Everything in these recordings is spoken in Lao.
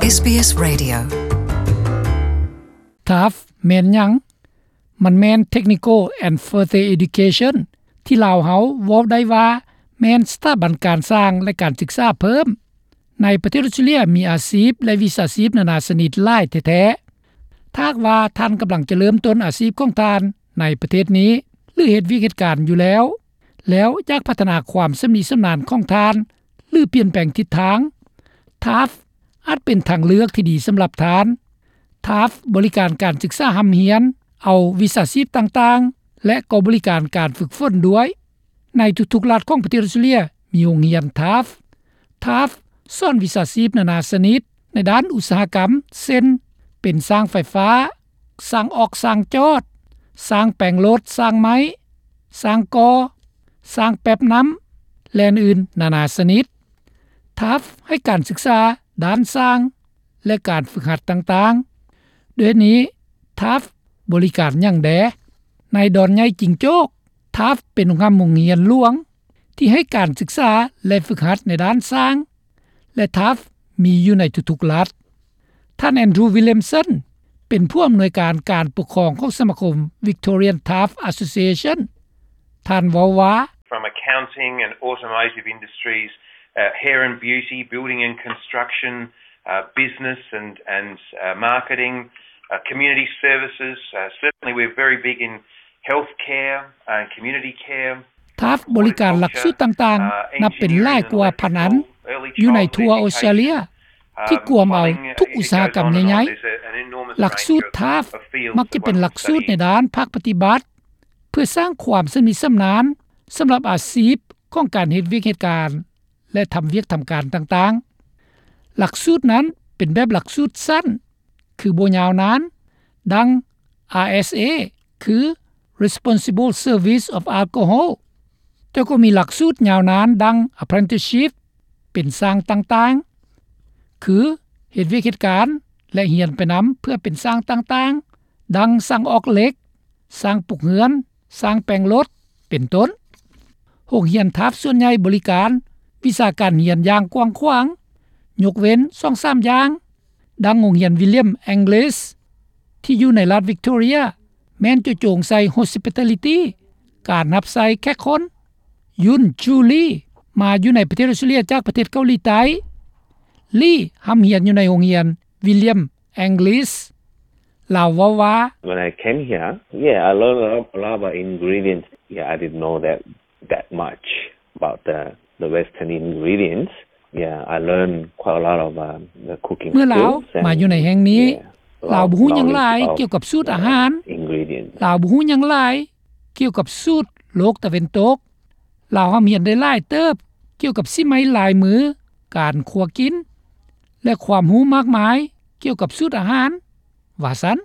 ເອສບີເອສ Radio. ທາຟ ແມ່ນຫຍັງ? ມັນແມ່ນ Technical and Further Education ທີ່ລາວເຮົາເວົ້າໄດ້ວ່າແມ່ນສະຖາບັນການສ້າງ ແລະ ການສຶກສາເພີ່ມ. ໃນປະເທດອອສເຕຣເລັຽມີອາຊີບ ແລະ ວິຊາຊີບນານາຊະນິດຫຼາຍແທ້ໆ. ຖ້າຫາກວ່າທ່ານກຳລັງຈະເລີ່ມຕົ້ນອາຊີບຂອງທ່ານໃນປະເທດນີ້ ຫຼື ເຮັດວຽກເຮັດການຢູ່ແລ້ວ ແລ້ວຢາກພັດທະນາຄວາມຊຳນິຊຳນານຂອງທ່ານ ຫຼື ປ່ຽນແປງທິດທາງ, ທາຟ ອາດເປັນທາງເລືອກທີ່ດີສຳລັບທ່ານ. ທາຟ ບໍລິການການສຶກສາຮ່ຳຮຽນ, ເອົາວິຊາຊີບຕ່າງໆ ແລະ ກໍບໍລິການການຝຶກຝົນດ້ວຍ. ໃນທຸກໆລັດຂອງປະເທດອອສເຕຣເລັຽມີໂຮງຮຽນທາຟ. ທາຟ ສອນວິຊາຊີບນານາຊະນິດໃນດ້ານອຸດສາຫະກຳ ເຊັ່ນ ເປັນຊ່າງໄຟຟ້າ, ຊ່າງອອກ, ຊ່າງຈອດ, ຊ່າງແປງລົດ, ຊ່າງໄມ້, ຊ່າງກໍ່, ຊ່າງແປັບນ້ຳ ແລະ ອື່ນໆນານາຊະນິດ. ທາຟ ໃຫ້ການສຶກສາດ້ານຊ່າງ ແລະ ການຝຶກຫັດຕ່າງໆ. ດ້ວຍນີ້ ທາຟ ບໍລິການຫຍັງແດ່? ໃນດອນໃຫຍ່ຈິງໂຈ້ກ, ທາຟ ເປັນໂຮງຮ່ຳໂຮງຮຽນຫຼວງທີ່ໃຫ້ການສຶກສາ ແລະ ຝຶກຫັດໃນດ້ານຊ່າງ ແລະ ທາຟ ມີຢູ່ໃນທຸກໆລັດ. ທ່ານ ແອນດຣູ ວິລຽມສັນ ເປັນຜູ້ອຳນວຍການການປົກຄອງຂອງສະມາຄົມ Victorian Taft Association. ທ່ານເວົ້າວ່າ From accounting and automotive industries, uh, hair and beauty, building and construction, uh, business and, and, uh, marketing, uh, community services. Uh, certainly we're very big in healthcare and community care. ທາຟ ບໍລິການຫຼັກສູດຕ່າງໆ ນັບເປັນຫຼາຍກວ່າພັນອັນ ຢູ່ໃນທົ່ວອອສເຕຣເລັຽ ທີ່ກວມເອົາທຸກອຸດສາຫະກຳໃຫຍ່ໆ. ຫຼັກສູດທາຟ ມັກຈະເປັນຫຼັກສູດໃນດ້ານພາກປະຕິບັດ ເພື່ອສ້າງຄວາມຊຳນິຊຳນານສຳລັບອາຊີບຂອງການເຮັດວຽກເຮັດການ ແລະ ທຳວຽກທຳການຕ່າງໆ. ຫຼັກສູດນັ້ນເປັນແບບຫຼັກສູດສັ້ນ ຄືບໍ່ຍາວນານ ດັ່ງ ອາ ເອສ ເອ ຄື Responsible Service of Alcohol, ແຕ່ກໍມີຫຼັກສູດຍາວນານ ດັ່ງ Apprenticeship ເປັນຊ່າງຕ່າງໆ ຄືເຮັດວຽກເຮັດການ ແລະ ຮຽນໄປນຳເພື່ອເປັນຊ່າງຕ່າງໆ ດັ່ງ ຊ່າງອອກເຫຼັກ, ຊ່າງປຸກເຮືອນ, ຊ່າງແປງລົດ ເປັນຕົ້ນ. ໂຮງຮຽນທາຟສ່ວນໃຫຍ່ບໍລິການວິຊາການຮຽນຢ່າງກວ້າງຂວາງ, ຍົກເວັ້ນສອງສາມຢ່າງ, ດັ່ງໂຮງຮຽນ William Inglis ທີ່ຢູ່ໃນລັດ Victoria ແມ່ນເຈາະຈົງໃສ່ Hospitality ການຮັບໃຊ້ແຂກຄົນ. Yun Ju Lee ມາຢູ່ໃນປະເທດອອສເຕຣເລັຽຈາກປະເທດເກົາຫຼີໃຕ້. Lee ຮ່ຳຮຽນຢູ່ໃນໂຮງຮຽນ William Inglis. ລາວເວົ້າວ່າ When I came here, yeah, I learned a lot, a lot about ingredients. Yeah, I didn't know that, that much about the, the Western ingredients. Yeah, I learned quite a lot of, uh, the cooking skills and, yeah, a lot of knowledge about, uh, ingredients. ເມື່ອລາວມາຢູ່ໃນແຫ່ງນີ້ ລາວບໍ່ຮູ້ຫຍັງຫຼາຍກ່ຽວກັບສູດອາຫານ. ລາວບໍ່ຮູ້ຫຍັງຫຼາຍກ່ຽວກັບສູດໂລກຕາເວັນຕົກ. ລາວຮ່ຳຮຽນໄດ້ຫຼາຍເຕີບກ່ຽວກັບສີໄມ້ລາຍມື, ການຄົວກິນ ແລະ ຄວາມຮູ້ມາກມາຍກ່ຽວກັບສູດອາຫານ ວ່າຊັ້ນ.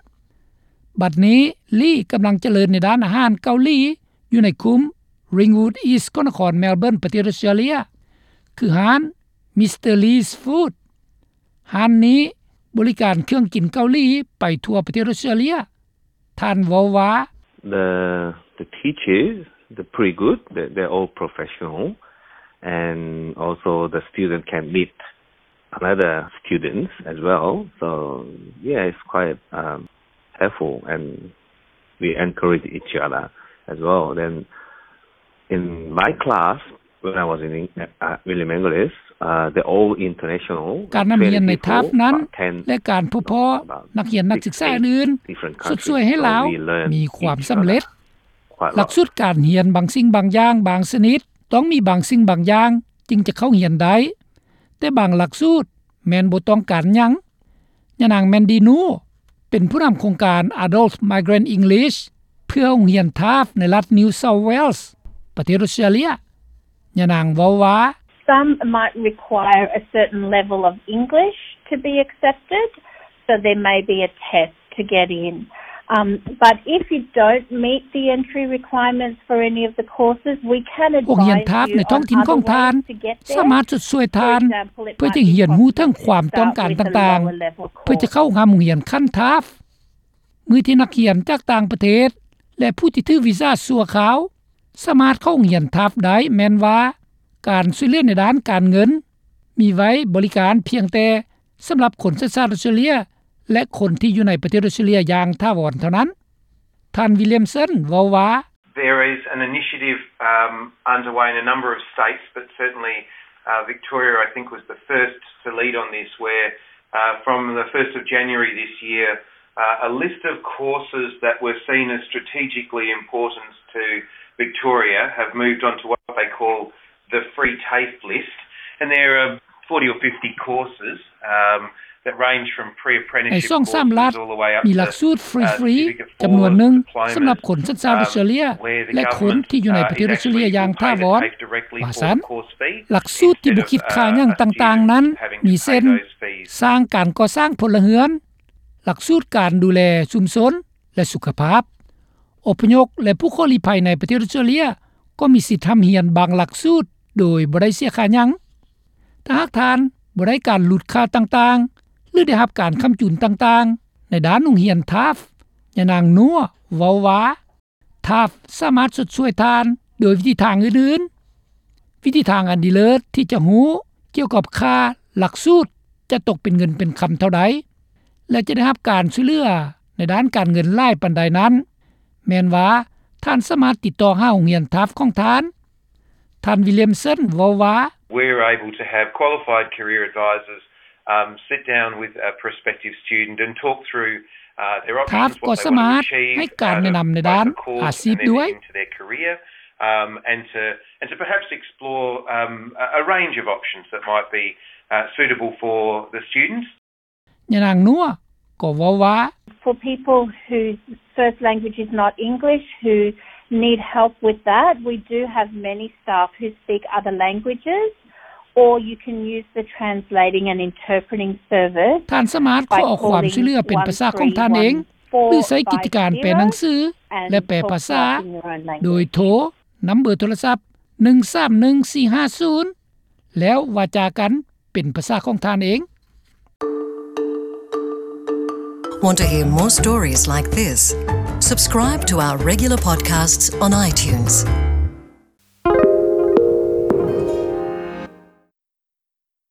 ບັດນີ້ ລີກຳລັງຈະເລີນໃນດ້ານອາຫານເກົາຫຼີຢູ່ໃນຄຸ້ມ Ringwood East ຂອງນະຄອນ Melbourne ປະເທດອອສເຕຣເລັຽ ຄືຮ້ານ Mister Lee's Food. ຮ້ານນີ້ບໍລິການເຄື່ອງກິນເກົາຫຼີໄປທົ່ວປະເທດອອສເຕຣເລັຽ. ທ່ານເວົ້າວ່າ The, the teachers, they're pretty good. They're, they're all professional. And also the student can meet another students as well. So, yeah, it's quite, um, helpful, and we encourage each other as well. Then in my class, when I was in, uh, William Inglis, uh, they're all international. ການນຳຮຽນໃນທາຟນັ້ນ ແລະ ການພົບພໍ້ນັກຮຽນນັກສຶກສາອື່ນໆ ຊົດຊ່ວຍໃຫ້ລາວມີຄວາມສຳເລັດ. ຫຼັກສູດການຮຽນບາງສິ່ງບາງຢ່າງບາງຊະນິດ ຕ້ອງມີບາງສິ່ງບາງຢ່າງຈຶ່ງຈະເຂົ້າຮຽນໄດ້, ແຕ່ບາງຫຼັກສູດແມ່ນບໍ່ຕ້ອງການຫຍັງ. ຍານາງ Mandy Nu ເປັນຜູ້ນຳໂຄງການ Adult Migrant English ເພື່ອໂຮງຮຽນທາຟໃນລັດ New South Wales ປະເທດອອສເຕຣເລັຽ. ຍານາງເວົ້າວ່າ Some might require a certain level of English to be accepted, so there may be a test to get in. Um, but if you don't meet the entry requirements for any of the courses, we can advise you on other ways to get there. ໂຮງຮຽນທາຟໃນທ້ອງຖິ່ນຂອງທ່ານສາມາດຊົດຊ່ວຍທ່ານເພື່ອຈະຮຽນຮູ້ເຖິງຄວາມຕ້ອງການຕ່າງໆ ເພື່ອຈະເຂົ້າຮ່ຳໂຮງຮຽນຂັ້ນທາຟ. ມື້ທີ່ນັກຮຽນຈາກຕ່າງປະເທດ ແລະ ຜູ້ທີ່ຖືວີຊາຊົ່ວຄາວ ສາມາດເຂົ້າໂຮງຮຽນທາຟໄດ້ ແມ່ນວ່າການຊ່ວຍເຫຼືອໃນດ້ານການເງິນມີໄວ້ບໍລິການພຽງແຕ່ ສຳລັບຄົນສັນຊາດອອສເຕຣເລັຽ ແລະ ຄົນທີ່ຢູ່ໃນປະເທດອອສເຕຣເລັຽຢ່າງຖາວອນເທົ່ານັ້ນ. ທ່ານ Williamson ເວົ້າວ່າ There is an initiative um, underway in a number of states, but certainly uh, Victoria, I think, was the first to lead on this, where uh, from the first of January this year, uh, a list of courses that were seen as strategically important to Victoria have moved on to what they call the free TAFE list, and there are forty or fifty courses um, that range from pre-apprenticeship courses all the way up to uh, certificate four diplomas, um, where the government uh, is actually able to pay directly for the course fee instead of uh, a student having to pay those fees. ສ້າງການກໍ່ສ້າງພົນລະເຮືອນ, ຫຼັກສູດການດູແລຊຸມຊົນ ແລະ ສຸຂະພາບ. ອົບພະຍົບ ແລະ ຜູ້ຂໍລີ້ໄພໃນປະເທດອອສເຕຣເລັຽ ກໍມີສິດຮ່ຳຮຽນບາງຫຼັກສູດໂດຍບໍ່ໄດ້ເສຍຄ່າຫຍັງ. ຖ້າຫາກທ່ານບໍ່ໄດ້ການຫຼຸດຄ່າຕ່າງໆ ຫຼື ໄດ້ຮັບການຄ້ຳຈູນຕ່າງໆ ໃນດ້ານໂຮງຮຽນ TAFE, ຍານາງ Noor ເວົ້າວ່າ TAFE ສາມາດຊົດຊ່ວຍທ່ານໂດຍວິທີທາງອື່ນໆ. ວິທີທາງອັນດີເລີດທີ່ຈະຮູ້ກ່ຽວກັບຄ່າຫຼັກສູດຈະຕົກເປັນເງິນເປັນຄຳເທົ່າໃດ ແລະ ຈະໄດ້ຮັບການຊ່ວຍເຫຼືອໃນດ້ານການເງິນຫຼາຍປານໃດນັ້ນ ແມ່ນວ່າທ່ານສາມາດຕິດຕໍ່ຫາໂຮງຮຽນ TAFE ຂອງທ່ານ. ທ່ານ Williamson ເວົ້າວ່າ We're able to have qualified career advisors um, sit down with a prospective student and talk through uh, their options, TAFE ກໍສາມາດໃຫ້ການແນະນຳໃນດ້ານອາຊີບດ້ວຍ into their career um, and to and to perhaps explore um, a range of options that might be uh, suitable for the students. ຍານາງ Noor ກໍເວົ້າວ່າ For people whose first language is not English, who need help with that, we do have many staff who speak other languages, or you can use the translating and interpreting service. ທ່ານສາມາດຂໍຄວາມຊ່ວຍເຫຼືອເປັນພາສາຂອງທ່ານເອງ ຫຼື ໃຊ້ກິດຈະການແປໜັງສື ແລະ ແປພາສາ ໂດຍໂທນຳເບີໂທລະສັບ ໜຶ່ງສາມໜຶ່ງສີ່ຫ້າສູນ ແລ້ວວາຈາກັນເປັນພາສາຂອງທ່ານເອງ. Want to hear more stories like this? Subscribe to our regular podcasts on iTunes.